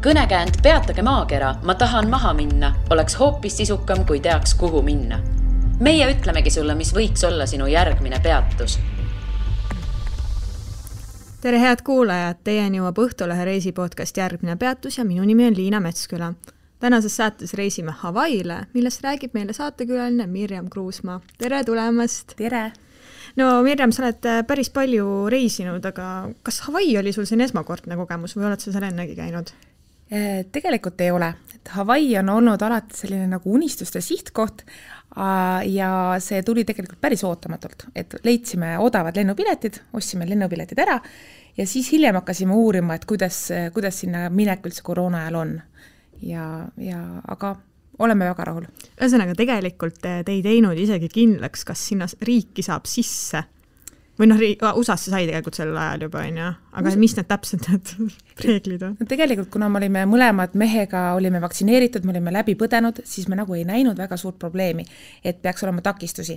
Kõnekäänd peatage maakera, ma tahan maha minna, oleks hoopis sisukam, kui teaks, kuhu minna. Meie ütlemegi sulle, mis võiks olla sinu järgmine peatus. Tere head kuulajad, teieni jõuab Õhtulehe reisipodcast Järgmine peatus ja minu nimi on Liina Metsküla. Tänases saates reisime Hawaiile, millest räägib meile saatekülaline Mirjam Kruusmaa. Tere tulemast! Tere! No Mirjam, sa oled päris palju reisinud, aga kas Hawaii oli sul siin esmakordne kogemus või oled sa seal ennegi käinud? Tegelikult ei ole. Hawaii on olnud alati selline nagu unistuste sihtkoht ja see tuli tegelikult päris ootamatult, et leidsime odavad lennupiletid, ostsime lennupiletid ära ja siis hiljem hakkasime uurima, et kuidas sinna minek üldse koroona ajal on. Aga oleme väga rahul. Ühesõnaga, tegelikult te ei teinud isegi kindlaks, kas sinna riiki saab sisse. Või USA-sse sai tegelikult sel ajal juba, aga mis need täpselt need reeglid on? Tegelikult, kuna me olime mõlemad mehega, olime vaktsineeritud, me olime läbi põdenud, siis me nagu ei näinud väga suurt probleemi, et peaks olema takistusi.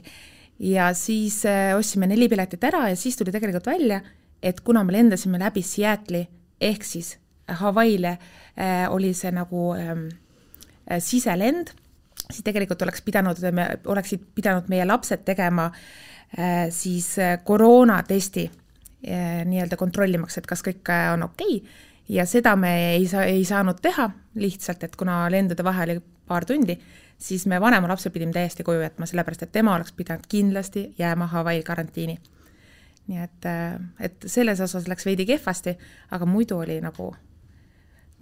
Ja siis ostsime 4 piletit ära ja siis tuli tegelikult välja, et kuna me lendasime läbi Seattle'i ehk siis Hawaiile oli see nagu siselend, siis tegelikult oleksid pidanud meie lapsed tegema siis koroonatesti nii-öelda kontrollimaks, et kas kõik on okei. Ja seda me ei saanud teha lihtsalt, et kuna lendude vahe oli paar tundi, siis me vanema lapse pidime täiesti koju jätma, sellepärast, et tema oleks pidanud kindlasti jääma Hawaii karantiini. Nii et selles osas läks veidi kehvasti, aga muidu oli nagu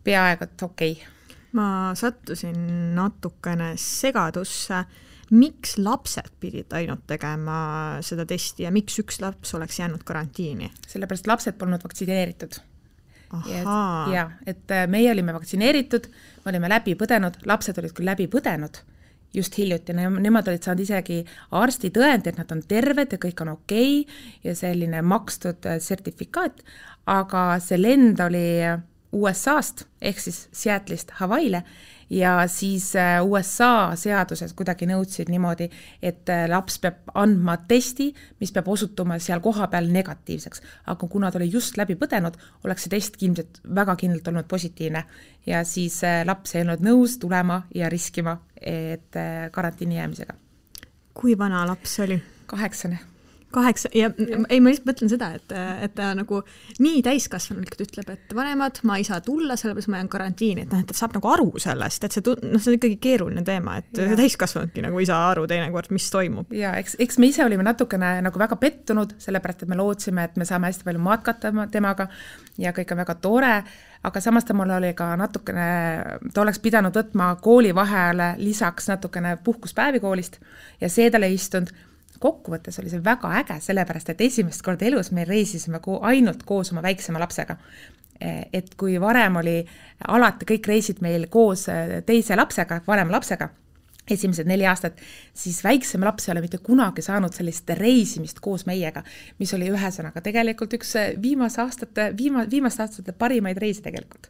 peaaegu okei. Ma sattusin natukene segadusse. Miks lapsed pidid ainult tegema seda testi ja miks üks laps oleks jäänud karantiini? Sellepärast lapsed polnud vaktsineeritud. Ja, et meie olime vaktsineeritud, me olime läbi põdenud, lapsed olid küll läbi põdenud just hiljuti, nemad olid saanud isegi arsti tõend, et nad on terved ja kõik on okei ja selline makstud sertifikaat, aga see lend oli USA-st ehk siis Seattle'ist Hawaiile ja siis USA seaduses kuidagi nõudsid niimoodi, et laps peab andma testi, mis peab osutuma seal koha peal negatiivseks. Aga kuna ta oli just läbi põdenud, oleks see test väga kindlalt olnud positiivne. Ja siis laps ei olnud nõus tulema ja riskima et karantiini jäämisega. Kui vana laps oli? 8. Ja ei, ma lihtsalt mõtlen seda, et ta nagu nii täiskasvanulikult ütleb, et vanemad, ma ei saa tulla, sellepärast ma jään karantiini, et ta saab nagu aru sellest, et see on ikkagi keeruline teema, et täiskasvanudki nagu ei saa aru teinekord, mis toimub. Ja eks me ise olime natukene nagu väga pettunud, sellepärast, et me lootsime, et me saame hästi palju matkata temaga ja kõik on väga tore, aga samas ta mul oli ka natukene, ta oleks pidanud võtma kooli vahele lisaks natukene puhkuspäevi koolist ja see talle istunud. Kokkuvõttes oli see väga äge, sellepärast, et esimest korda elus me reisisime ainult koos oma väiksema lapsega. Et kui varem oli alati kõik reisid meil koos teise lapsega, vanema lapsega, esimesed 4 aastat, siis väiksema laps ei ole mitte kunagi saanud sellist reisimist koos meiega, mis oli ühesõnaga tegelikult üks viimaste aastate parimaid reisi tegelikult.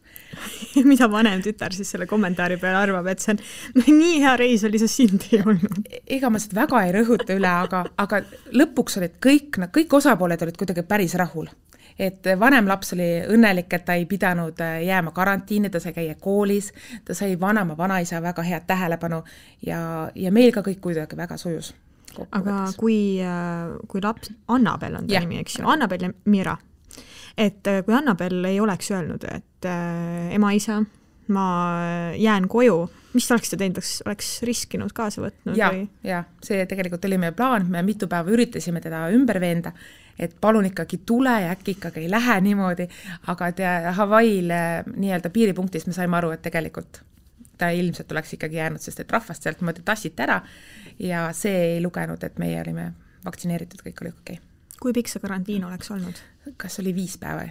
Mida vanem tütar siis selle kommentaari peale arvab, et see on nii hea reis oli, see sind ei olnud? Ega ma seda väga ei rõhuta üle, aga lõpuks olid kõik osapooled olid kuidagi päris rahul. Et vanem laps oli õnnelik, et ta ei pidanud jääma karantiini, ta sai käia koolis, ta sai vanaisa väga head tähelepanu ja meil ka kõik kuidagi väga sujus. Aga kui laps, Annabel on ta nimi, eks ju, Annabel ja Mira, et kui Annabel ei oleks öelnud, et ema isa, ma jään koju, mis oleks ta teinud, oleks riskinud kaasa võtnud? Ja, see tegelikult oli meie plaan, me mitu päeva üritasime teda ümber veenda, et palun ikkagi tule ja äkki ikkagi ei lähe niimoodi, aga Hawaiil nii-öelda piiripunktis me saime aru, et tegelikult ta ilmselt oleks ikkagi jäänud, sest et rahvast sealt mõte tassiti ära ja see ei lugenud, et meie olime vaktsineeritud, kõik oli okei. Kui pikk see karantiin oleks olnud? Kas oli 5 päeva?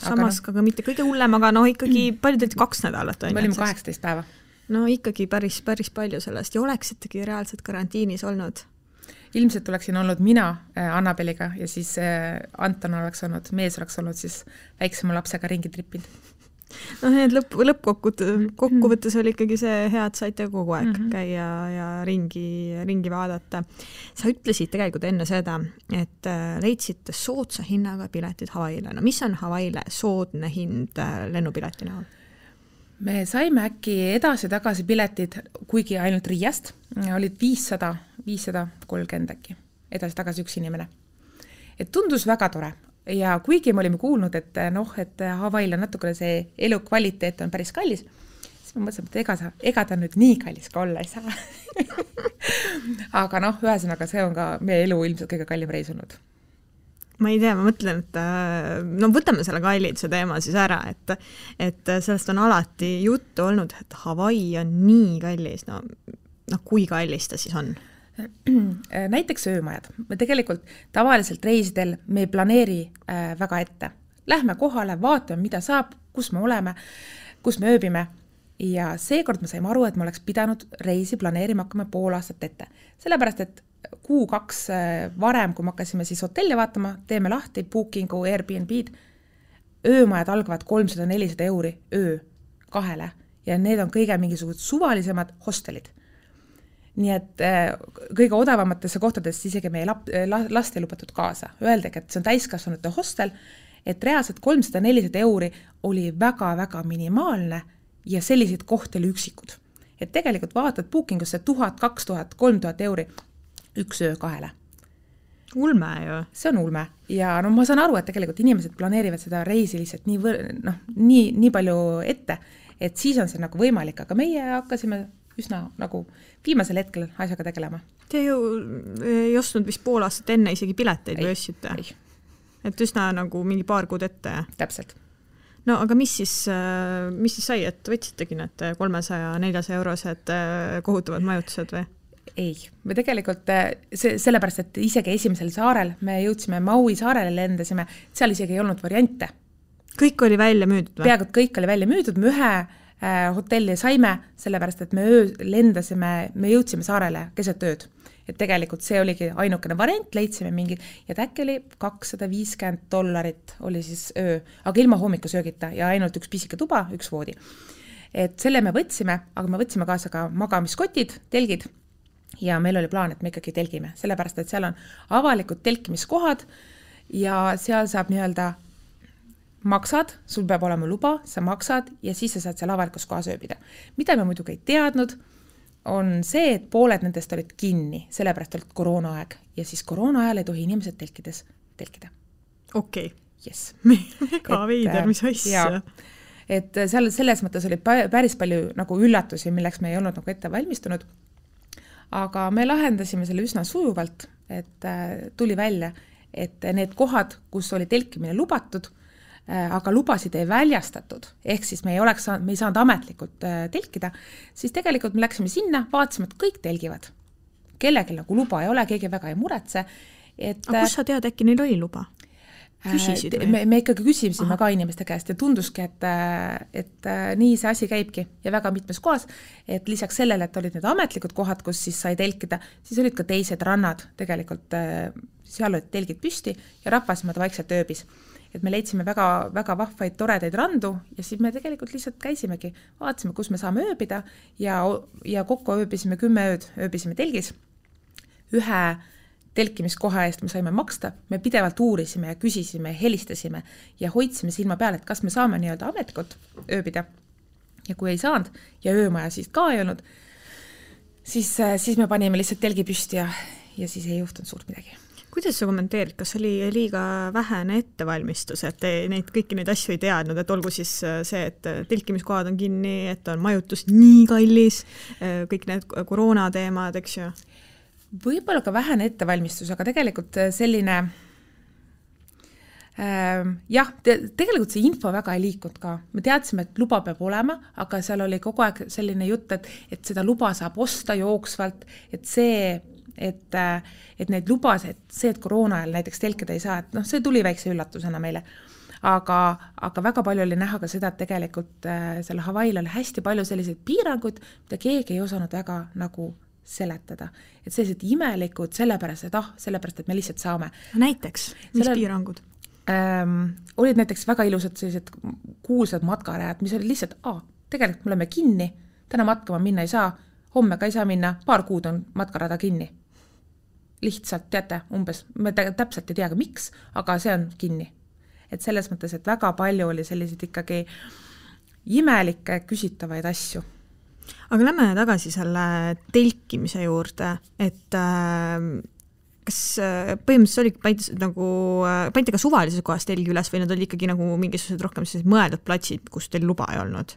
Samas ka mitte kõige hullem, aga ikkagi palju 2 nädalat. Me olime 18 päeva. No ikkagi päris palju sellest ja oleksitegi reaalselt karantiinis olnud? Ilmselt oleksin olnud mina Annabeliga ja siis Anton oleks olnud, mees oleks olnud siis väiksema lapsega ringi trippinud. No need lõppkokkuvõttes oli ikkagi see hea, et saite kogu aeg käia ja ringi vaadata. Sa ütlesid tegelikult enne seda, et leidsite soodsa hinnaga piletid Hawaiile. No mis on Hawaiile soodne hind lennupileti näol? me saime äkki edasi-tagasi piletid, kuigi ainult Riiast, olid 530 äkki, edasi-tagasi üks inimene. Et tundus väga tore ja kuigi me olime kuulnud, et et Hawaii'l on natukene see elukvaliteet on päris kallis, siis ma mõtlesin, et ega ta nüüd nii kallis ka olla ei saa. Aga ühesõnaga see on ka meie elu ilmselt kõige kallim reis olnud. Ma ei tea, ma mõtlen, et võtame selle kalliduse teema siis ära, et sellest on alati juttu olnud, et Hawaii on nii kallis, kui kallis ta siis on? Näiteks öömajad. Me tegelikult tavaliselt reisidel me ei planeeri väga ette. Lähme kohale, vaatame, mida saab, kus me oleme, kus me ööbime ja seekord me saime aru, et me oleks pidanud reisi planeerima hakkame pool aastat ette. Sellepärast, et kuu-2 varem, kui me hakkasime siis hotelli vaatama, teeme lahti Bookingu, Airbnb-d, öömajad algavad 300-400 euri öö 2 ja need on kõige mingisugused suvalisemad hostelid. Nii et kõige odavamatesse kohtadesse isegi meie last ei lubatud kaasa. Öeldagi, et see on täiskasvanute hostel, et reaalselt 300-400 euri oli väga-väga minimaalne ja sellised kohti oli üksikud. Et tegelikult vaatad Bookingusse 1000, 2000, 3000 euri üks öö 2. Ulme ju. See on ulme. Ja ma saan aru, et tegelikult inimesed planeerivad seda reisi lihtsalt nii palju ette, et siis on see nagu võimalik, aga meie hakkasime üsna nagu viimasel hetkel asjaga tegelema. Te ju ei ostnud vist pool aastat enne isegi pileteid või ostsite? Et üsna nagu mingi paar kuud ette. Täpselt. No aga mis siis sai, et võtsitegi need 300-400 eurosed kohutavad majutused või? Ei, me tegelikult sellepärast, et isegi esimesel saarel me jõudsime Maui saarele lendasime, seal isegi ei olnud variante. Kõik oli välja müüdud või? Peaaegu kõik oli välja müüdud, me ühe hotelli saime, sellepärast, et me jõudsime saarele keset ööd. Et tegelikult see oligi ainukene variant, leidsime mingi, ja äkki oli $250 oli siis öö, aga ilma hommikusöögita ja ainult üks pisike tuba, üks voodi. Et selle me võtsime, aga me võtsime kaasa ka magamiskotid, telgid, ja meil oli plaan, et me ikkagi telgime, sellepärast, et seal on avalikud telkimiskohad ja seal saab maksad, sul peab olema luba, sa maksad ja siis sa saad seal avalikus kohas ööbida. Mida me muidugi ei teadnud, on see, et pooled nendest olid kinni, sellepärast olid koroonaaeg ja siis koroona ajal ei tohi inimesed telkides telkida. Okei. Yes. Mega veider, mis asja. Et seal selles mõttes oli päris palju nagu üllatusi, milleks me ei olnud nagu ette valmistunud. Aga me lahendasime selle üsna sujuvalt, et tuli välja, et need kohad, kus oli telkimine lubatud, aga lubasid ei väljastatud, ehk siis me ei saanud ametlikult telkida, siis tegelikult me läksime sinna, vaatasime, et kõik telgivad. Kellelgi nagu luba ei ole, keegi väga ei muretse. Aga kus sa tead, äkki neil oli luba? Küsisid või? Me ikkagi küsisime ka inimeste käest ja tunduski, et nii see asi käibki ja väga mitmes kohas, et lisaks sellele, et olid need ametlikud kohad, kus siis sai telkida, siis olid ka teised rannad, tegelikult seal olid telgid püsti ja rahvasmad vaikselt ööbis. Et me leidsime väga, väga vahvaid, toredaid randu ja siis me tegelikult lihtsalt käisimegi, vaatasime, kus me saame ööbida ja kokku ööbisime 10 ööd, ööbisime telgis. Ühe telkimiskoha eest me saime maksta, me pidevalt uurisime ja küsisime, helistasime ja hoidsime silma peale, et kas me saame nii-öelda ametlikult ööbida. Ja kui ei saanud ja öömaja siis ka ei olnud, siis me panime lihtsalt telgi püsti ja siis ei juhtunud suurt midagi. Kuidas sa kommenteerid, kas oli liiga vähene ettevalmistus, et kõiki neid asju ei teadnud, et olgu siis see, et telkimiskohad on kinni, et on majutus nii kallis, kõik need koroona teemad, eks ju? Võib-olla ka vähene ettevalmistus, aga tegelikult selline tegelikult see info väga ei liikunud ka. Me teadsime, et luba peab olema, aga seal oli kogu aeg selline jutt, et seda luba saab osta jooksvalt, et neid lubas, et see, et koroona ajal näiteks telkida ei saa, et see tuli väikse üllatusena meile. Aga väga palju oli näha ka seda, et tegelikult selle Hawaii'l oli hästi palju selliseid piiranguid, mida keegi ei osanud väga nagu seletada. Et sellised imelikud sellepärast, et me lihtsalt saame. Näiteks, mis piirangud? Olid näiteks väga ilusad sellised kuulsad matkarajad, mis olid lihtsalt, tegelikult me oleme kinni, täna matkama minna ei saa, homme ka ei saa minna, paar kuud on matkarada kinni. Lihtsalt, teate, umbes, me täpselt ei teagi miks, aga see on kinni. Et selles mõttes, et väga palju oli sellised ikkagi imelikke küsitavaid asju. Aga lähme tagasi selle telkimise juurde, et kas põhimõtteliselt panite ka suvalises kohas telgi üles või need oli ikkagi nagu mingisugused rohkem mõeldud platsid, kus teil luba ei olnud?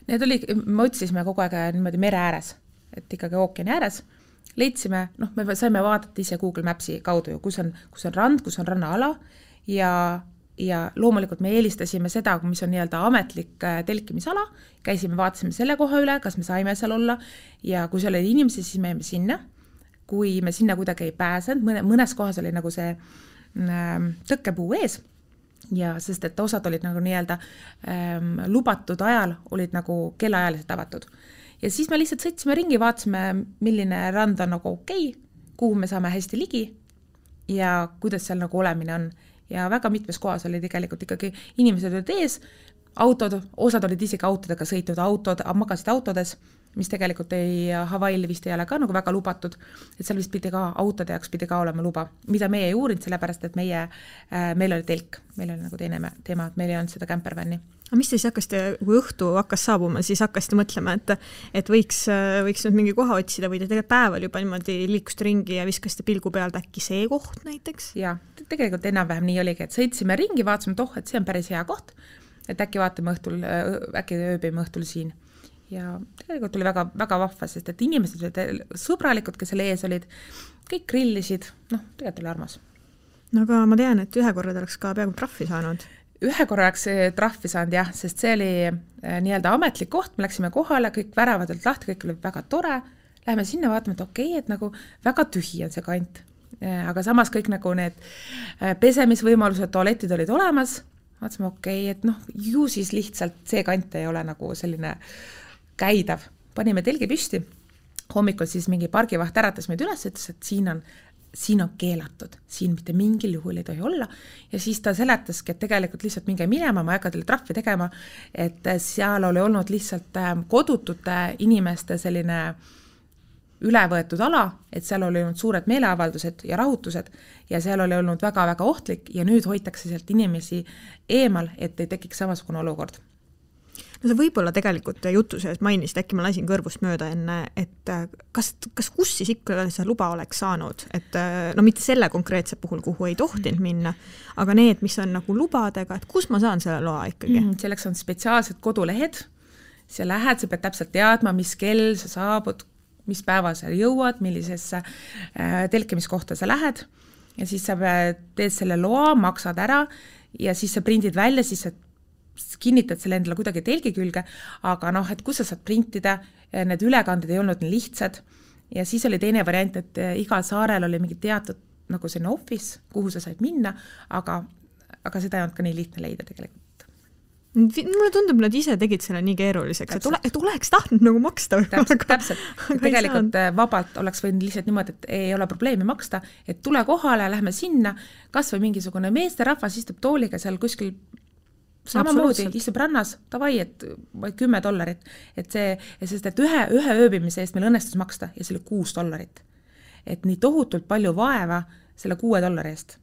Need oli, me otsisime kogu aeg niimoodi mere ääres, et ikkagi ookeani ääres. Leidsime, me saime vaadata ise Google Mapsi kaudu, kus on rand, kus on rannaala ja loomulikult me eelistasime seda, mis on nii-öelda ametlik telkimisala, käisime, vaatasime selle koha üle, kas me saime seal olla ja kui seal oli inimesi, siis me jäime sinna. Kui me sinna kuidagi ei pääsenud, mõnes kohas oli nagu see tõkkepuu ees ja sest et osad olid nagu nii-öelda lubatud ajal, olid nagu kellaajaliselt avatud. Ja siis me lihtsalt sõitsime ringi, vaatasime, milline rand on nagu okei, kuhu me saame hästi ligi ja kuidas seal nagu olemine on. Ja väga mitmes kohas oli tegelikult ikkagi inimesed olid ees, autod, osad olid isegi autodega sõitnud, magasid autodes, mis tegelikult Hawaii'l vist ei ole ka nagu väga lubatud, et seal vist pidi ka autode jaoks pidi ka olema luba, mida meie ei uurinud, sellepärast, et meil oli telk, meil oli nagu teine teema, et meil ei olnud seda campervanni. Aga mis te siis hakkasite, kui õhtu hakkas saabuma, siis hakkasite mõtlema, et võiks nüüd mingi koha otsida või te tegelikult päeval juba niimoodi liikusite ringi ja viskasite pilgu pealt äkki see koht näiteks? Ja, tegelikult enam-vähem nii oligi, et sõitsime ringi, vaatasime, et see on päris hea koht, et äkki vaatame õhtul, äkki ööbime õhtul siin. Ja tegelikult oli väga, väga vahva, sest et inimesed olid sõbralikud, kes selle ees olid, kõik grillisid, tegelikult oli armas. No aga ma tean, et ühe korra oleks ka peaaegu trahvi saanud. Ühe korra oleks trahvi saanud jah, sest see oli nii-öelda ametlik koht, me läksime kohale, kõik väravad olid lahti, kõik oli väga tore, läheme sinna vaatame, et okei, et nagu väga tühi on see kant, aga samas kõik nagu need pesemisvõimalused, tualetid olid olemas, vaatasime okei, et ju siis lihtsalt see kant ei ole nagu selline käidav. Panime telgi püsti, hommikul siis mingi pargivaht äratas meid üles, ütles, et siin on keelatud, siin mitte mingil juhul ei tohi olla ja siis ta seletaski, et tegelikult lihtsalt minge minema, ma ei hakka teile trahvi tegema, et seal oli olnud lihtsalt kodutute inimeste selline ülevõetud ala, et seal oli olnud suured meeleavaldused ja rahutused ja seal oli olnud väga-väga ohtlik ja nüüd hoitakse sealt inimesi eemal, et ei tekiks samasugune olukord. No see võib-olla tegelikult jutu sees mainisid, äkki ma lasin kõrvust mööda enne, et kas kus siis ikka see luba oleks saanud, et mitte selle konkreetse puhul, kuhu ei tohtinud minna, aga need, mis on nagu lubadega, et kus ma saan selle loa ikkagi? Selleks on spetsiaalsed kodulehed, sa lähed, sa pead täpselt teadma, mis kell sa saabud, mis päeva sa jõuad, millisesse telkimiskohta sa lähed ja siis sa teed selle loa, maksad ära ja siis sa prindid välja, siis sa kinnitad selle endale kuidagi telgi külge, aga et kus sa saad printida, need ülekanded ei olnud nii lihtsad ja siis oli teine variant, et igal saarel oli mingi teatud nagu selline office, kuhu sa said minna, aga seda ei olnud ka nii lihtne leida tegelikult. Mulle tundub, nad ise tegid selle nii keeruliseks, et oleks tahtnud nagu maksta. Täpselt. Tegelikult vabalt oleks võinud lihtsalt niimoodi, et ei ole probleemi maksta, et tule kohale, lähme sinna, kas või mingisugune meesterahvas istub tooliga seal kuskil samamoodi istub rannas, tavai, et $10, et sest et ühe ööbimise eest meil õnnestus maksta ja see oli $6. Et nii tohutult palju vaeva selle $6 eest.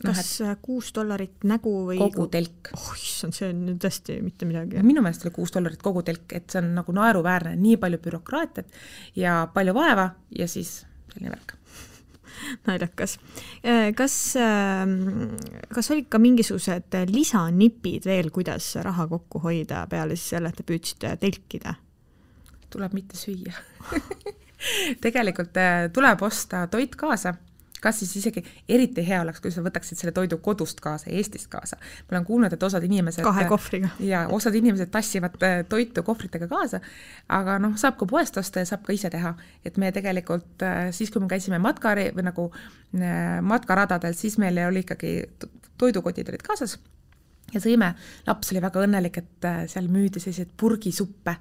Kas $6 nägu või kogu telk? See on tõesti mitte midagi. Minu meelest oli $6 kogu telk, et see on nagu naeruväärne, nii palju bürokraatiat ja palju vaeva ja siis selline värk. Naljakas. Kas olid ka mingisugused lisanipid veel, kuidas raha kokku hoida peale siis selle, et te püüdsite telkida? Tuleb mitte süüa. Tegelikult tuleb osta toit kaasa. Kas siis isegi eriti hea oleks, kui sa võtaksid selle toidu kodust kaasa, Eestist kaasa. Ma olen kuulnud, et osad inimesed 2 kohvriga. Ja osad inimesed tassivad toitu kohvritega kaasa, aga saab ka poest osta ja saab ka ise teha. Et me tegelikult, siis kui me käisime matkaradadel, siis meil oli ikkagi toidukotid olid kaasas ja sõime. Laps oli väga õnnelik, et seal müüdi sellised purgisuppe,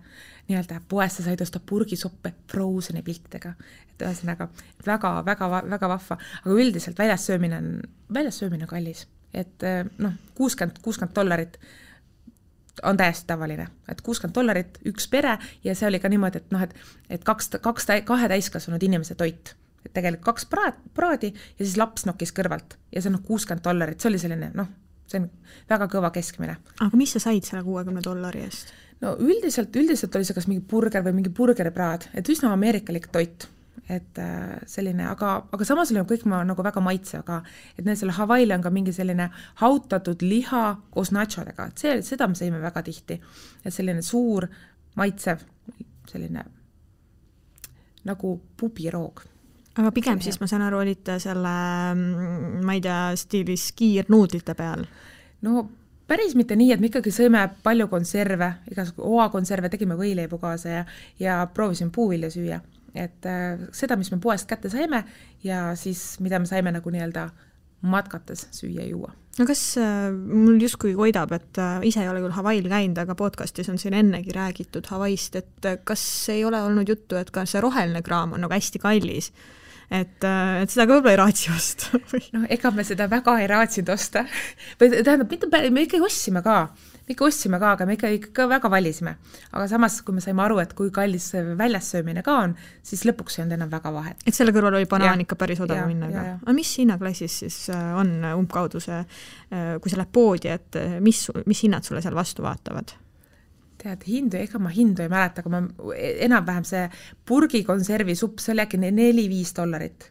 nii-öelda poest sa said osta purgisuppe Frozeni piltidega. Et ühesõnaga väga, väga, väga vahva, aga üldiselt väljas söömine kallis. Et $60 on täiesti tavaline, et $60 üks pere ja see oli ka niimoodi, et kahe täiskasvanud inimese toit. Et tegelikult 2 praadi ja siis laps nokkis kõrvalt ja see on $60, see oli selline, see on väga kõva keskmine. Aga mis sa said selle $60 eest? no üldiselt oli see kas mingi burger või mingi burgeripraad, et üsna ameerikalik toit. Et selline, aga samas oli kõik nagu väga maitsev, et neil selle Hawaii'l on ka mingi selline hautatud liha koos nachodega, et seda me saime väga tihti. Et selline suur maitsev, selline nagu pubiroog. Aga pigem siis ma saan aru, olite selle, ma ei tea, stiilis kiirnuudlite peal? No päris mitte nii, et me ikkagi sõime palju konserve, igasugu oakonserve, tegime võileibu kaasa ja proovisime puuvilja süüa. Et seda, mis me poest kätte saime ja siis mida me saime nagu nii-öelda matkates süüa juua. No kas mul justkui koidab, et ise ei ole küll Hawaii'l käinud, aga podcastis on siin ennegi räägitud Hawaii'st, et kas ei ole olnud juttu, et ka see roheline kraam on nagu hästi kallis, et seda ka võib-olla ei raatsi osta? No ega me seda väga ei raatsinud osta. Tähendab, me ikkagi ostsime ka, aga me ikka väga valisime. Aga samas, kui me saime aru, et kui kallis väljas söömine ka on, siis lõpuks ei olnud enam väga vahet. Et selle kõrval oli banaan ikka päris odav minna. Aga mis hinnaklassis siis on umbkaudu see, kui sa lähed poodi, et mis hinnad sulle seal vastu vaatavad? Tead, ega ma hindu ei mäleta, aga enam-vähem see purgi konservi supp, see oli äkki $4-5.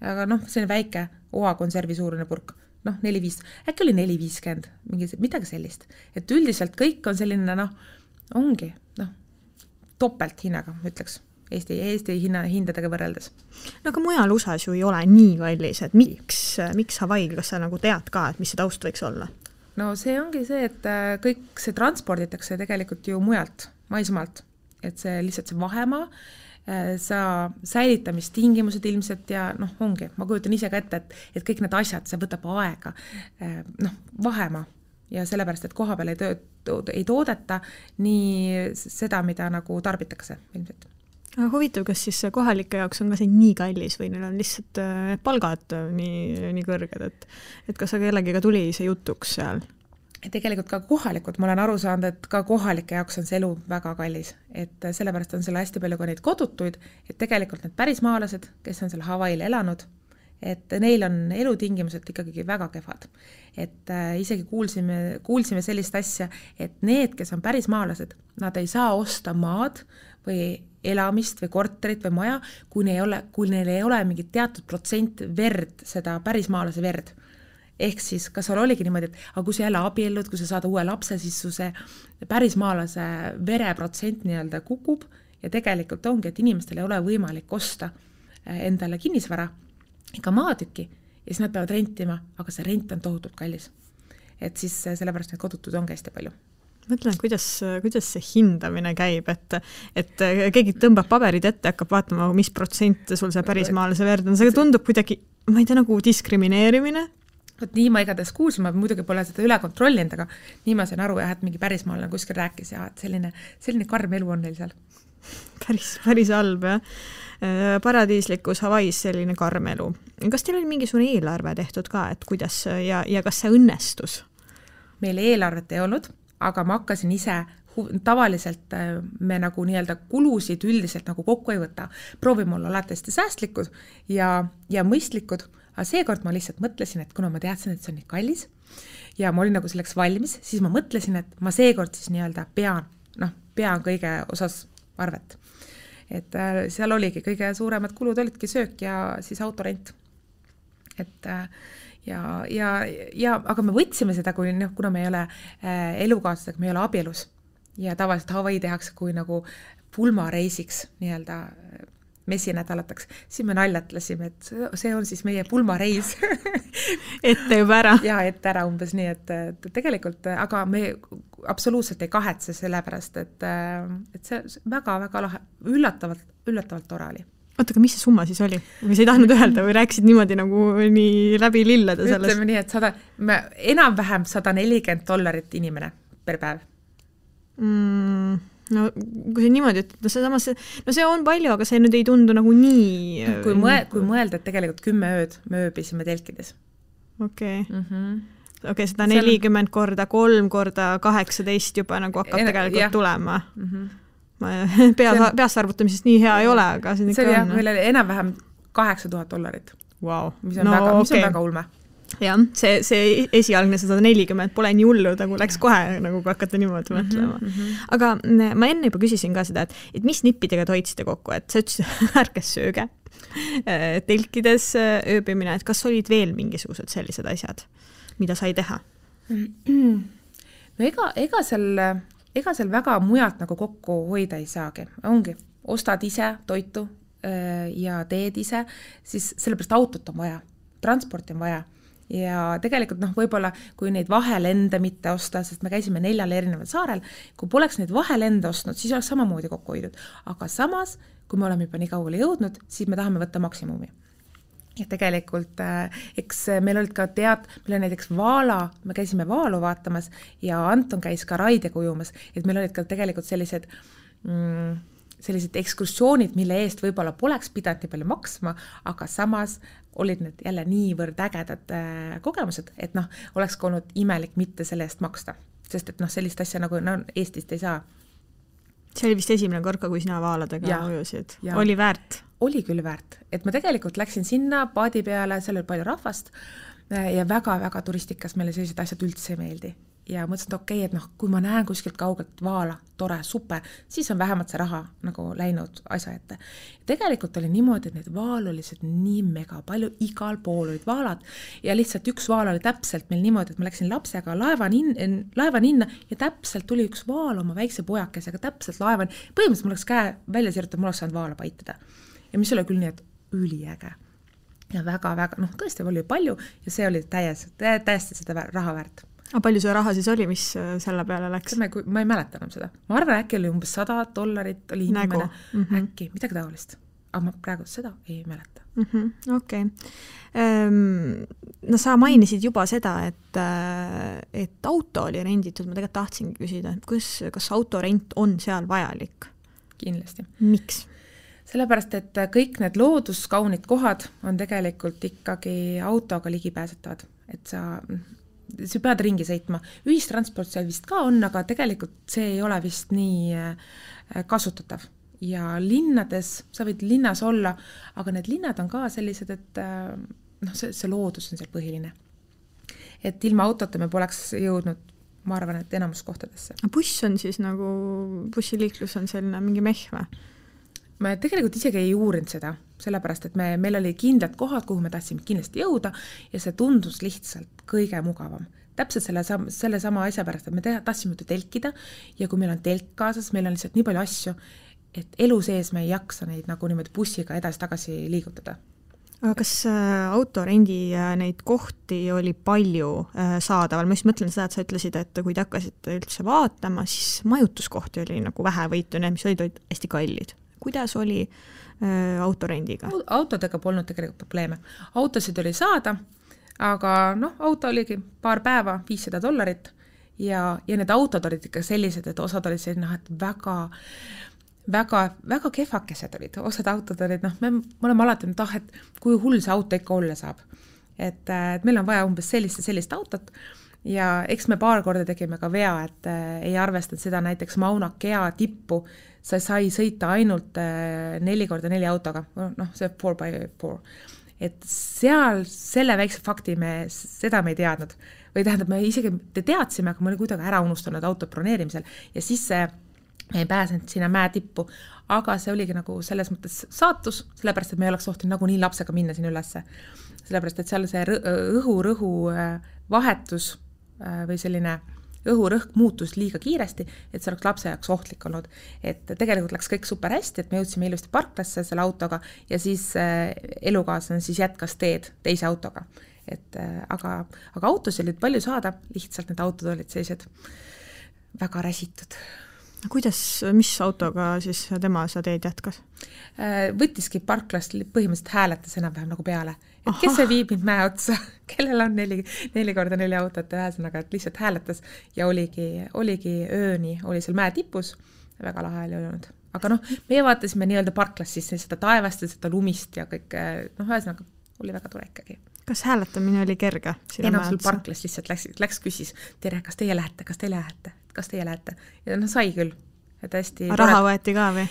Aga see on väike oakonservi suurune purk. 4-5, äkki oli 4-50, midagi sellist. Et üldiselt kõik on selline, ongi, topelt hinnaga, ütleks, Eesti hindadega võrreldes. No aga mujal USAs ju ei ole nii kallis, et miks Hawaii'l, kas sa nagu tead ka, et mis see taust võiks olla? No see ongi see, et kõik see transporditakse tegelikult ju mujalt, maismaalt, et see lihtsalt see vahemaa, sa säilitamistingimused ilmselt ja ongi, ma kujutan ise ka ette, et kõik need asjad, see võtab aega, vahemaa ja sellepärast, et koha peal ei toodeta nii seda, mida nagu tarbitakse ilmselt. Aga huvitav, kas siis kohalike jaoks on ka see nii kallis või neil on lihtsalt palgad nii kõrged, et kas kellegiga tuli see jutuks seal? Tegelikult ka kohalikud, ma olen aru saanud, et ka kohalike jaoks on see elu väga kallis, et sellepärast on selle hästi palju ka neid kodutuid, et tegelikult need pärismaalased, kes on seal Hawaii'l elanud, et neil on elutingimused ikkagi väga kehvad. Et isegi kuulsime sellist asja, et need, kes on pärismaalased, nad ei saa osta maad või elamist või korterit või maja, kui neil ei ole mingit teatud protsent verd, seda pärismaalase verd. Ehk siis, kas seal oligi niimoodi, et aga kui sa jälle abiellud, kui sa saad uue lapse, siis su see pärismaalase vereprotsent nii-öelda kukub ja tegelikult ongi, et inimestel ei ole võimalik osta endale kinnisvara ega maatükki ja siis nad peavad rentima, aga see rent on tohutult kallis. Et siis sellepärast need kodutud on hästi palju. Mõtlen, kuidas see hindamine käib, et keegi tõmbab paberid ette, hakkab vaatama, mis protsent sul see pärismaalase verd on. See tundub kuidagi, ma ei tea, nagu diskrimineerimine. Nii ma igatahes kuulsin, ma muidugi pole seda üle kontrollinud, aga nii ma sain aru, et mingi pärismaalane kuskil rääkis ja et selline karm elu on neil seal. Päris halb, jah. Paradiislikus Hawaii's selline karm elu. Kas teil oli mingisugune eelarve tehtud ka, et kuidas ja kas see õnnestus? Meil eelarvet ei olnud, aga ma hakkasin ise, tavaliselt me nagu nii-öelda kulusid üldiselt nagu kokku ei võta. Proovime olla alati hästi säästlikud ja mõistlikud. Aga seekord ma lihtsalt mõtlesin, et kuna ma teadsin, et see on nii kallis ja ma olin nagu selleks valmis, siis ma mõtlesin, et ma seekord siis nii-öelda pean kõige osas arvet. Et seal oligi kõige suuremad kulud olidki söök ja siis autorent. Et aga me võtsime seda, kuna me ei ole elukaaslasega, me ei ole abielus ja tavaliselt Hawaii tehakse kui nagu pulmareisiks nii-öelda messinädalataks, siis me naljatlesime, et see on siis meie pulmareis. Ette juba ära. Ja ette ära umbes nii, et tegelikult, aga me absoluutselt ei kahetse sellepärast, et see väga-väga lahe, üllatavalt tore oli. Oota, aga mis see summa siis oli? Või sa ei tahtnud öelda või rääkisid niimoodi nagu nii läbi lilleda sellest? Ütleme nii, et enam-vähem $140 inimene per päev. No kui see niimoodi, et see on palju, aga see nüüd ei tundu nagu nii... Kui mõelda, et tegelikult 10 ööd me ööbisime telkides. Okei, 140 korda 3 korda 18 juba nagu hakkab tegelikult tulema. Peas arvutamisest nii hea ei ole, aga see on. See oli meil oli enam-vähem $8,000. Wow. Mis on väga ulme. jah, see esialgne 140 pole nii hullu, nagu läks kohe, nagu kui hakata niimoodi mõtlema. Aga ma enne juba küsisin ka seda, et mis nippidega te hoidsite kokku, et sa ütlesid ärkes sööge, telkides ööbimine, et kas olid veel mingisugused sellised asjad, mida sai teha? No ega seal väga mujalt nagu kokku hoida ei saagi. Ongi, ostad ise toitu ja teed ise, siis sellepärast autot on vaja, transporti on vaja. Ja tegelikult võib-olla, kui neid vahelende mitte osta, sest me käisime 4 erineval saarel, kui poleks neid vahelende ostnud, siis oleks samamoodi kokku hoidnud. Aga samas, kui me oleme juba nii kaugele jõudnud, siis me tahame võtta maksimumi. Ja tegelikult, eks meil olid ka meil oli näiteks Vaala, me käisime Vaalu vaatamas ja Anton käis ka Raidega ujumas, et meil olid ka tegelikult sellised ekskursioonid, mille eest võib-olla poleks pidanud nii palju maksma, aga samas olid need jälle niivõrd ägedad kogemused, et oleks ka olnud imelik mitte selle eest maksta, sest et sellist asja nagu Eestist ei saa. See oli vist esimene korda, kui sina Vaaladega ujusid. Oli väärt? Oli küll väärt, et ma tegelikult läksin sinna paadi peale, seal oli palju rahvast ja väga-väga turistikas meile sellised asjad üldse ei meeldi. Ja mõtlesin, et okei, et kui ma näen kuskilt kaugelt Vaala, tore, super, siis on vähemalt see raha nagu läinud asja ette. Tegelikult oli niimoodi, et need Vaal oli nii mega palju, igal pool olid Vaalad ja lihtsalt üks Vaal oli täpselt meil niimoodi, et ma läksin lapsega laevaninna ja täpselt tuli üks Vaal oma väikse pojakesega täpselt laevan. Põhimõtteliselt mul oleks käe välja sirjutada, mul oleks saanud Vaala paitada. Ja mis oli küll nii, et üliäge. Ja väga-väga, tõesti oli palju ja see oli täiesti seda raha väärt. Aga palju see raha siis oli, mis selle peale läks? Ma ei mäleta enam seda. Ma arvan, äkki oli umbes $100 oli inimene. Äkki, midagi taolist. Aga ma praegu seda ei mäleta. Okei. No sa mainisid juba seda, et auto oli renditud. Ma tegelikult tahtsingi küsida, kas autorent on seal vajalik? Kindlasti. Miks? Sellepärast, et kõik need looduskaunid kohad on tegelikult ikkagi autoga ligipääsetavad. Et sa pead ringi sõitma. Ühistransport seal vist ka on, aga tegelikult see ei ole vist nii kasutatav. Ja linnades, sa võid linnas olla, aga need linnad on ka sellised, et see loodus on seal põhiline. Et ilma autota me poleks jõudnud, ma arvan, et enamus kohtadesse. Buss on siis bussiliiklus on selline mingi mehve? Me tegelikult isegi ei uurinud seda, sellepärast, et meil oli kindlad kohad, kuhu me tahtsime kindlasti jõuda ja see tundus lihtsalt kõige mugavam. Täpselt selle sama asja pärast, et me tahtsime telkida ja kui meil on telk kaasas, meil on lihtsalt nii palju asju, et elu sees me ei jaksa neid nagu niimoodi bussiga edasi-tagasi liigutada. Aga kas autorendi neid kohti oli palju saadaval? Ma just mõtlen seda, et sa ütlesid, et kui te hakkasite üldse vaatama, siis majutuskohti oli nagu vähe võitu, mis olid hästi kallid. Kuidas oli autorendiga? Autodega polnud tegelikult probleeme. Autosid oli saada, aga auto oligi paar päeva, $500 ja need autod olid ikka sellised, et osad olid selline, et väga kehvakesed olid. Osad autod olid, me oleme alati et kui hull see auto ikka olla saab. Et meil on vaja umbes sellist autot ja eks me paar korda tegime ka vea, et ei arvestanud seda näiteks Mauna Kea tippu, sa sai sõita ainult 4x4 autoga, see 4x4. Et seal selle väikse fakti seda me ei teadnud. Või tähendab, me isegi teadsime, aga me oli kuidagi ära unustanud auto broneerimisel ja siis me ei pääsenud sinna mäe tippu, aga see oligi nagu selles mõttes saatus, sellepärast, et me ei oleks tohtinud nagu nii lapsega minna sinna ülesse. Sellepärast, et seal see õhu vahetus või selline õhurõhk muutus liiga kiiresti, et see oleks lapse jaoks ohtlik olnud. Et tegelikult läks kõik super hästi, et me jõudsime ilusti parklasse selle autoga ja siis elukaaslane siis jätkas teed teise autoga. Aga autosid olid palju saada, lihtsalt need autod olid sellised väga räsitud. Mis autoga siis tema sa teed jätkas? Võttiski parklast põhimõtteliselt hääletas enam-vähem nagu peale. Et kes see viib mind mäe otsa, kellel on 4x4 autot ja ühesõnaga, et lihtsalt hääletas ja oligi ööni, oli seal mäe tipus, väga lahe oli olnud. Aga meie vaatasime nii-öelda parklast siis seda taevast ja seda lumist ja kõik, ühesõnaga oli väga tore ikkagi. Kas hääletamine oli kerge? Sul parklas lihtsalt läks küsis, tere, kas teie lähete? Ja sai küll. Raha võeti ka või?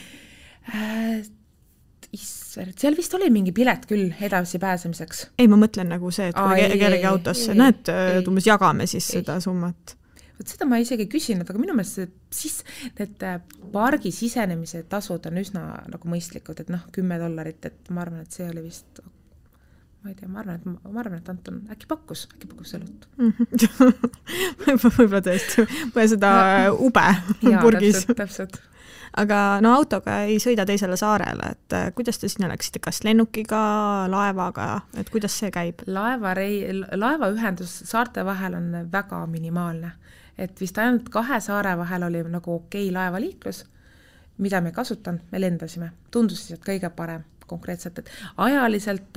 seal vist oli mingi pilet küll edasi pääsemiseks. Ei, ma mõtlen nagu see, et kui kellegi autosse, näed, umbes jagame siis seda summat. Võt seda ma isegi küsinud, aga minu meelest siis need pargi sisenemise tasud on üsna nagu mõistlikud, et $10, et ma arvan, et see oli vist, ma ei tea, ma arvan, et Anton äkki pakkus õlut. Võib-olla tõesti, või seda ube purgis. Täpselt. Aga autoga ei sõida teisele saarele, et kuidas te sinna läksite, kas lennukiga, laevaga, et kuidas see käib? Laevaühendus saarte vahel on väga minimaalne, et vist ainult 2 saare vahel oli nagu okei laevaliiklus, mida me kasutan, me lendasime, tundus siis, et kõige parem konkreetselt, et ajaliselt,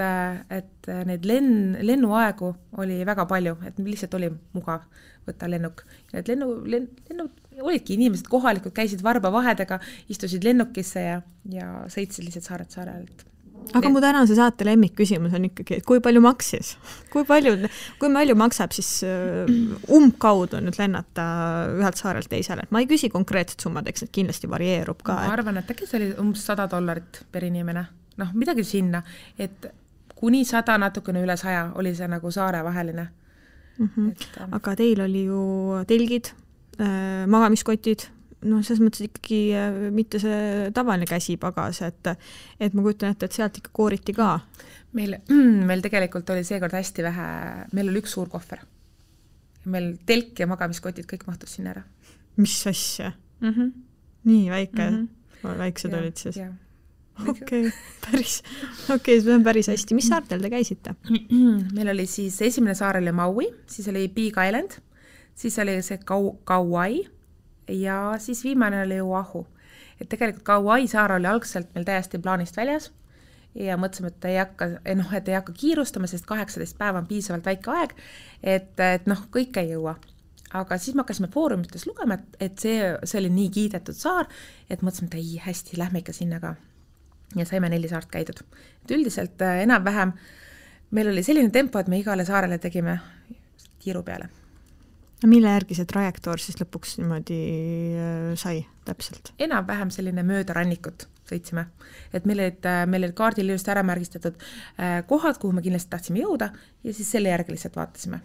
et neid lennuaegu oli väga palju, et lihtsalt oli mugav võtta lennuk. Need lennud olidki inimesed kohalikud, käisid varbavahedega, istusid lennukisse ja sõitsid lihtsalt saarelt saarelt. Aga mu tänase saate lemmikküsimus on ikkagi, et kui palju maksis? Kui palju maksab siis umbkaudu nüüd lennata ühelt saarelt teisele? Ma ei küsi konkreetset summad, eks need kindlasti varieerub ka. Ma arvan, et äkki see oli umbes $100 per inimene. Midagi sinna, et kuni 100, natukene üle 100 oli see nagu saare vaheline. Aga teil oli ju telgid, magamiskotid, selles mõttes ikkagi mitte see tavaline käsipagas, et ma kujutan ette, et sealt ikka kooriti ka. Meil tegelikult oli seekord hästi vähe, meil oli üks suur kohver. Meil telk ja magamiskotid kõik mahtus sinna ära. Mis asja? Nii väike, väiksed olid siis? Okei, see on päris hästi. Mis saartel te käisite? Meil oli siis esimene saar oli Maui, siis oli Big Island, siis oli see Kauai ja siis viimane oli Oahu. Et tegelikult Kauai saar oli algselt meil täiesti plaanist väljas ja mõtlesime, et ei hakka kiirustama, sest 18 päeva on piisavalt väike aeg, et kõik ei jõua. Aga siis me hakkasime foorumites lugema, et see oli nii kiidetud saar, et mõtlesime, et ei, hästi, lähme ikka sinna ka. Ja saime 4 saart käidud. Et üldiselt enam-vähem meil oli selline tempo, et me igale saarele tegime kiiru peale. Mille järgi see trajektoor siis lõpuks niimoodi sai täpselt? Enam-vähem selline mööda rannikut sõitsime. Et meil olid kaardil just ära märgistatud kohad, kuhu me kindlasti tahtsime jõuda ja siis selle järgi lihtsalt vaatasime.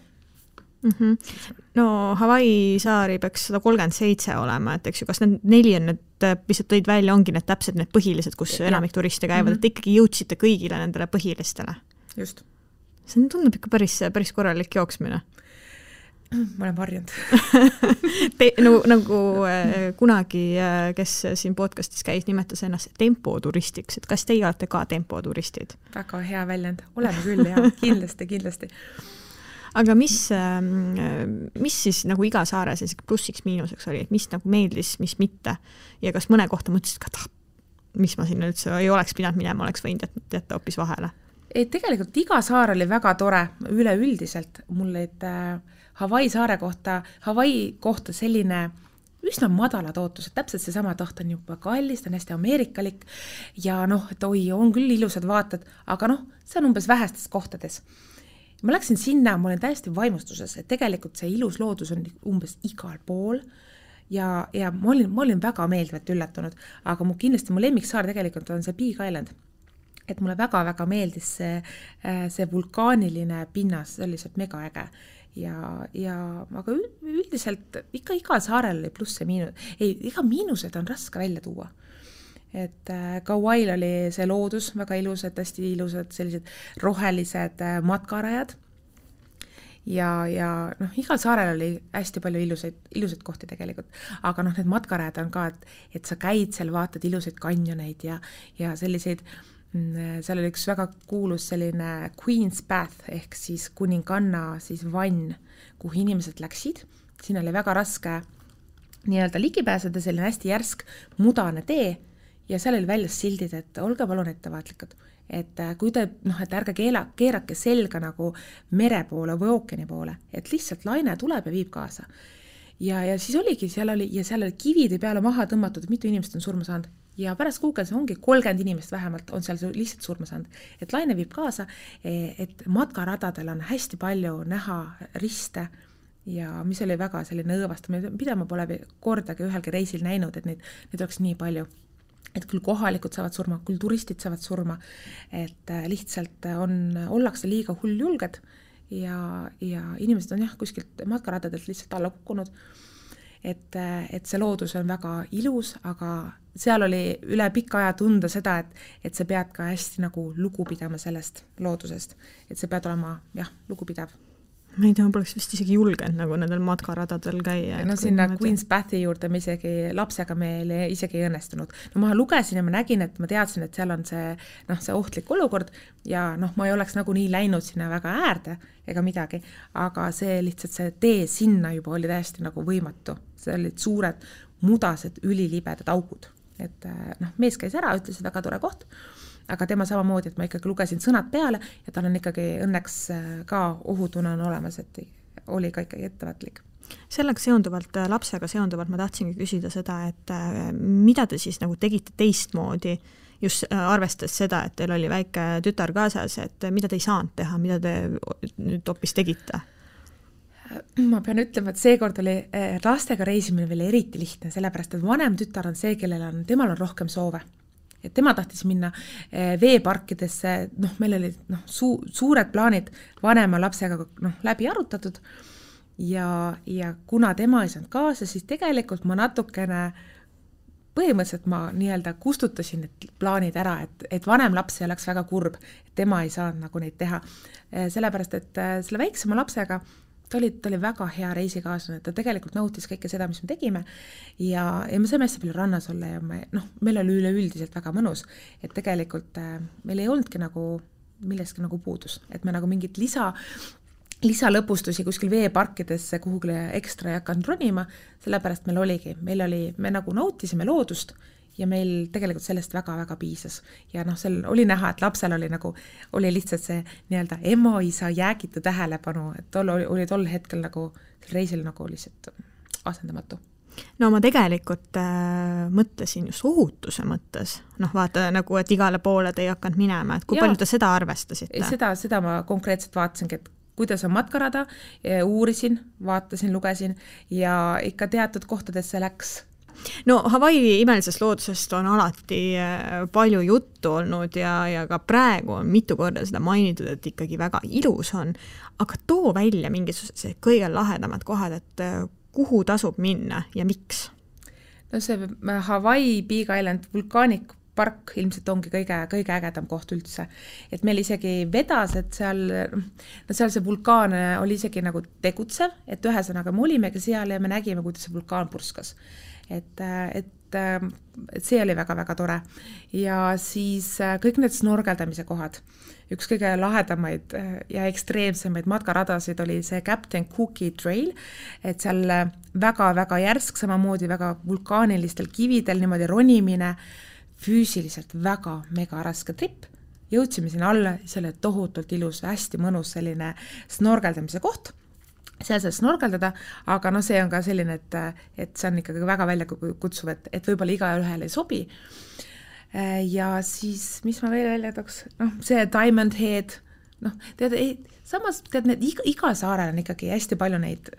No Hawaii saari peaks 137 olema, et eks ju, kas need 4 on need, mis tõid välja, ongi need täpselt need põhilised, kus enamik turiste käivad, et ikkagi jõudsite kõigile nendele põhilistele. Just. See tundub ikka päris korralik jooksmine. Ma olen varjanud. Nagu kunagi, kes siin podcastis käis, nimetas ennast tempoturistiks, et kas teie olete ka tempoturistid? Väga hea väljend. Oleme küll, jah, kindlasti. Aga mis siis nagu iga saare plussiks miinuseks oli, et mis nagu meeldis, mis mitte ja kas mõne kohta mõtlesid ka, mis ma sinna üldse ei oleks pidanud minema, oleks võinud jätta hoopis vahele? Tegelikult iga saar oli väga tore üleüldiselt. Mul olid Hawaii kohta selline üsna madalad ootused, täpselt see sama taht on juba kallis, ta on hästi ameerikalik ja et on küll ilusad vaated, aga see on umbes vähestes kohtades. Ma läksin sinna, ma olen täiesti vaimustuses, et tegelikult see ilus loodus on umbes igal pool ja ma olin väga meeldivalt üllatunud, aga kindlasti mu lemmiksaar tegelikult on see Big Island. Et mulle väga-väga meeldis see vulkaaniline pinnas, see oli lihtsalt megaäge. Aga üldiselt ikka igal saarel oli pluss ja miinus. Iga miinused on raske välja tuua. Et Kauail oli see loodus väga ilusad, hästi ilusad sellised rohelised matkarajad ja igal saarel oli hästi palju ilusaid kohti tegelikult, aga need matkarajad on ka, et sa käid seal, vaatad ilusaid kanjoneid ja selliseid, seal oli üks väga kuulus selline Queen's Bath ehk siis kuninganna siis vann, kuhu inimesed läksid, siin oli väga raske nii-öelda ligipääseda, selline hästi järsk mudane tee ja seal oli väljas sildid, et olge palun ettevaatlikud, et kui te, et ärge keerake selga nagu mere poole või ookeani poole, et lihtsalt laine tuleb ja viib kaasa. Ja siis oligi, seal oli kivide peale maha tõmmatud, et mitu inimest on surma saanud. Ja pärast kuuges ongi 30 inimest vähemalt on seal lihtsalt surma saanud. Et laine viib kaasa, et matkaradadel on hästi palju näha riste ja mis oli väga selline õõvastamine, mida ma pole kordagi ühelgi reisil näinud, et neid oleks nii palju. et küll kohalikud saavad surma, küll turistid saavad surma, et lihtsalt ollakse liiga hulljulged ja inimesed on kuskilt matkaradadelt lihtsalt alla kukkunud, et see loodus on väga ilus, aga seal oli üle pika aja tunda seda, et sa pead ka hästi nagu lugu pidama sellest loodusest, et sa pead olema lugupidav. Ma ei tea, ma poleks vist isegi julgenud nagu nendel matkaradadel käia. No sinna Queen's Bathi juurde me isegi lapsega meil isegi ei õnnestunud. No ma lugesin ja ma nägin, et ma teadsin, et seal on see ohtlik olukord ja ma ei oleks nagu nii läinud sinna väga äärde ega midagi, aga see lihtsalt see tee sinna juba oli täiesti nagu võimatu. See olid suured, mudased, ülilibedad augud. Et mees käis ära, ütles, et väga tore koht, aga tema samamoodi, et ma ikkagi lugesin sõnad peale ja tal on ikkagi õnneks ka ohutunne on olemas, et oli ka ikkagi ettevaatlik. Sellega seonduvalt, lapsega seonduvalt ma tahtsingi küsida seda, et mida te siis nagu tegite teistmoodi, just arvestades seda, et teil oli väike tütar kaasas, et mida te ei saanud teha, mida te nüüd hoopis tegite? Ma pean ütlema, et seekord oli lastega reisimine veel eriti lihtne, sellepärast, et vanem tütar on see, temal on rohkem soove. Et tema tahtis minna veeparkidesse, meil oli suured plaanid vanema lapsega läbi arutatud ja kuna tema ei saanud kaasa, siis tegelikult ma natukene põhimõtteliselt ma nii-öelda kustutasin need plaanid ära, et vanem laps ei oleks väga kurb, et tema ei saanud nagu neid teha. Sellepärast, et selle väiksema lapsega ta oli väga hea reisikaaslane, ta tegelikult nautis kõike seda, mis me tegime ja me saime hästi palju rannas olla ja meil oli üleüldiselt väga mõnus, et tegelikult meil ei olnudki nagu millestki nagu puudus, et me nagu mingit lisalõpustusi kuskil veeparkidesse kuhugile ekstra ei hakanud ronima, sellepärast me nagu nautisime loodust ja meil tegelikult sellest väga-väga piisas. Ja seal oli näha, et lapsel oli lihtsalt see nii-öelda ema-isa jäägitu tähelepanu, et oli tol hetkel nagu reisil nagu lihtsalt asendamatu. No ma tegelikult mõtlesin just ohutuse mõttes. Vaata nagu, et igale poole te ei hakanud minema, et kui palju te seda arvestasite? Seda ma konkreetselt vaatasingi, et kuidas on matkarada, uurisin, vaatasin, lugesin ja ikka teatud kohtadesse läks. No Hawaii imelisest loodusest on alati palju juttu olnud ja ka praegu on mitu korda seda mainitud, et ikkagi väga ilus on, aga too välja mingisugused kõige lahedamad kohad, et kuhu tasub minna ja miks? No see Hawaii Big Island vulkaanik park ilmselt ongi kõige ägedam koht üldse. Et meil isegi vedas, et seal see vulkaan oli isegi nagu tegutsev, et ühesõnaga me olimegi seal ja me nägime, kuidas see vulkaan purskas. Et see oli väga-väga tore. Ja siis kõik need snorgeldamise kohad. Üks kõige lahedamaid ja ekstreemsemaid matkaradasid oli see Captain Cookie Trail, et seal väga-väga järsk, samamoodi väga vulkaanilistel kividel niimoodi ronimine, füüsiliselt väga mega raske trip. Jõudsime sinna alla, see oli tohutult ilus, hästi mõnus selline snorgeldamise koht. Seal saab snorgeldada, aga see on ka selline, et see on ikkagi väga välja kutsuv, et võib-olla iga ühele ei sobi. Ja siis, mis ma veel välja tooks? See Diamond Head, samas iga saarel on ikkagi hästi palju neid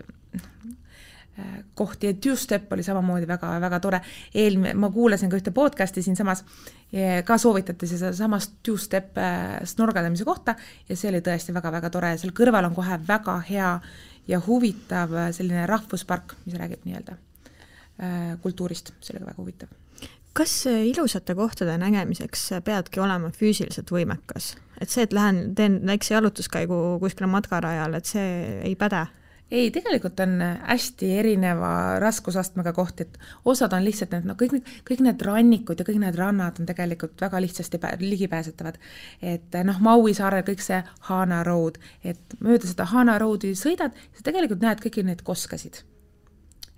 kohti ja Two-Step oli samamoodi väga-väga tore. Ma kuulasin ka ühte podcasti siin samas, ka soovitati seda samast Two-Step snorgeldamise kohta ja see oli tõesti väga-väga tore. Seal kõrval on kohe väga hea ja huvitav selline rahvuspark, mis räägib nii-öelda kultuurist, see oli väga huvitav. Kas ilusate kohtade nägemiseks peadki olema füüsiliselt võimekas? Et see, et teen väikse jalutuskäigu kuskile matkarajal, et see ei päde? Ei, tegelikult on hästi erineva raskusastmega koht, et osad on lihtsalt kõik need rannikud ja kõik need rannad on tegelikult väga lihtsasti ligipääsetavad. Et Maui saarel kõik see Hana Road, et mööda seda Hana Roadi sõidad, sa tegelikult näed kõiki neid koskasid.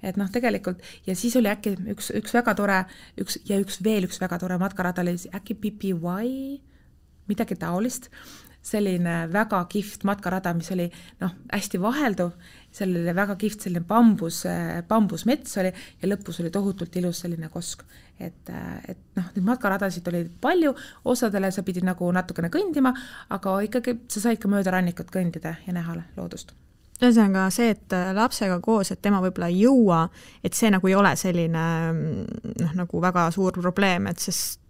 Et tegelikult, ja siis oli äkki üks väga tore, üks väga tore matkarada oli äkki PPY, midagi taolist, selline väga kihvt matkarada, mis oli hästi vahelduv, seal oli väga kihvt selline bambusmets oli ja lõpus oli tohutult ilus selline kosk. Et need matkaradasid oli palju, osadele sa pidid nagu natukene kõndima, aga ikkagi sa said ka mööda rannikut kõndida ja näha loodust. Ühesõnaga see, et lapsega koos, et tema võib-olla ei jõua, et see nagu ei ole selline nagu väga suur probleem, et sest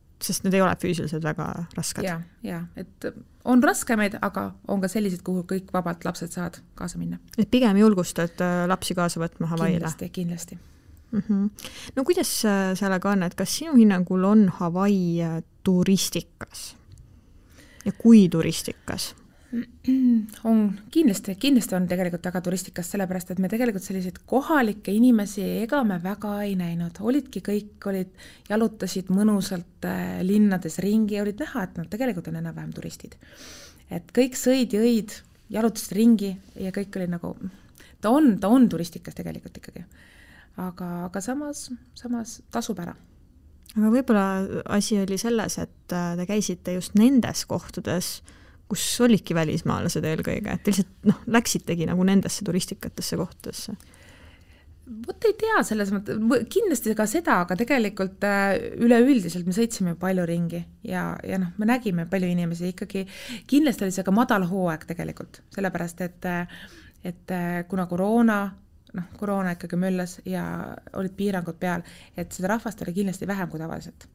need ei ole füüsiliselt väga rasked. Ja, et on raskemaid, aga on ka sellised, kuhu kõik vabalt lapsed saavad kaasa minna. Et pigem julgustad lapsi kaasa võtma Hawaiile? Kindlasti. No kuidas sellega on, et kas sinu hinnangul on Hawaii turistikas? Ja kui turistikas? On kindlasti on tegelikult väga turistikas, sellepärast, et me tegelikult selliseid kohalikke inimesi ega me väga ei näinud. Kõik jalutasid mõnusalt linnades ringi ja olid näha, et nad tegelikult on enam-vähem turistid. Et kõik sõid, jõid, jalutasid ringi ja kõik oli nagu, ta on turistikas tegelikult ikkagi. Aga samas tasub ära. Aga võib-olla asi oli selles, et te käisite just nendes kohtades, kus olidki välismaalased eelkõige, et lihtsalt läksitegi nagu nendesse turistikatesse kohtadesse? Vot ei tea selles mõttes, kindlasti ka seda, aga tegelikult üleüldiselt me sõitsime palju ringi ja me nägime palju inimesi ikkagi, kindlasti oli see ka madal hooaeg tegelikult, sellepärast, et kuna koroona ikkagi möllas ja olid piirangud peal, et seda rahvast oli kindlasti vähem kui tavaliselt.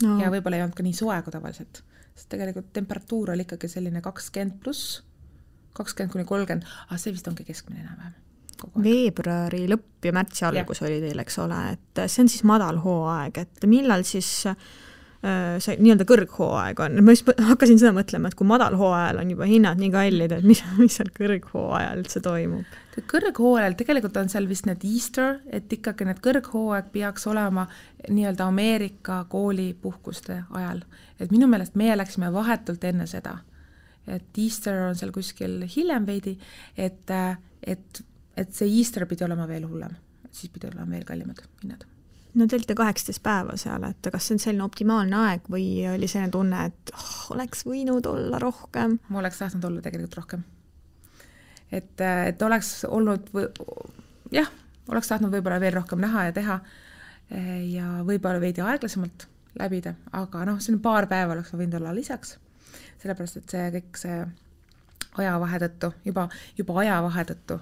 No. Ja võib-olla ei olnud ka nii soe kui tavaliselt. Sest tegelikult temperatuur oli ikkagi selline 20 pluss, 20–30, aga see vist ongi keskmine enam-vähem. Veebruari lõpp ja märtsi algus oli teil, eks ole, et see on siis madal hooaeg, et millal siis see nii-öelda kõrghooaeg on? Ma hakkasin seda mõtlema, et kui madal hooajal on juba hinnad nii kallid, et mis seal kõrghooajal üldse toimub? Kõrghooajal tegelikult on seal vist need Easter, et ikkagi need kõrghooaeg peaks olema nii-öelda Ameerika koolipuhkuste ajal. Et minu meelest meie läksime vahetult enne seda, et Easter on seal kuskil hiljem veidi, et see Easter pidi olema veel hullem, siis pidi olema veel kallimad hinnad. No te olite 18 päeva seal, et kas see on selline optimaalne aeg või oli selline tunne, et oleks võinud olla rohkem? Ma oleks tahtnud olla tegelikult rohkem. Et oleks olnud, oleks tahtnud võib-olla veel rohkem näha ja teha ja võib-olla veidi aeglasemalt läbida, aga see on paar päeva oleks võinud olla lisaks, sellepärast, et see kõik see ajavahe tõttu, juba ajavahe tõttu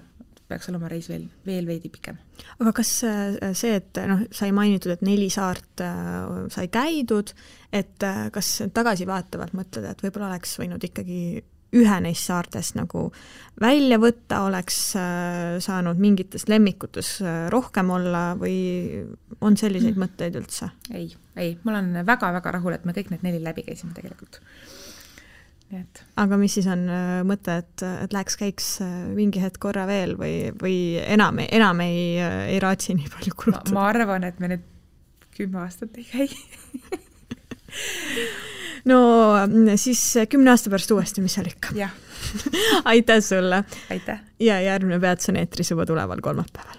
peaks olema reis veel veidi pikem. Aga kas see, et sai mainitud, et 4 saart sai käidud, et kas tagasi vaatavalt mõtled, et võib-olla oleks võinud ikkagi ühe neist saartest nagu välja võtta, oleks saanud mingites lemmikutes rohkem olla või on selliseid mõtteid üldse? Ei, ma olen väga-väga rahul, et me kõik need 4 läbi käisime tegelikult. Need. Aga mis siis on mõte, et käiks mingi hetk korra veel või enam ei raatsi nii palju kulutada? Ma arvan, et me nüüd 10 aastat ei käi. No siis 10 aasta pärast uuesti, mis seal ikka. Jah. Aitäh sulle. Aitäh. Ja järgmine Peats on eetris juba tuleval kolmapäeval.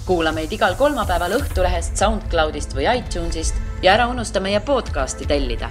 Kuula meid igal kolmapäeval Õhtulehest, SoundCloudist või iTunesist ja ära unusta meie podcasti tellida.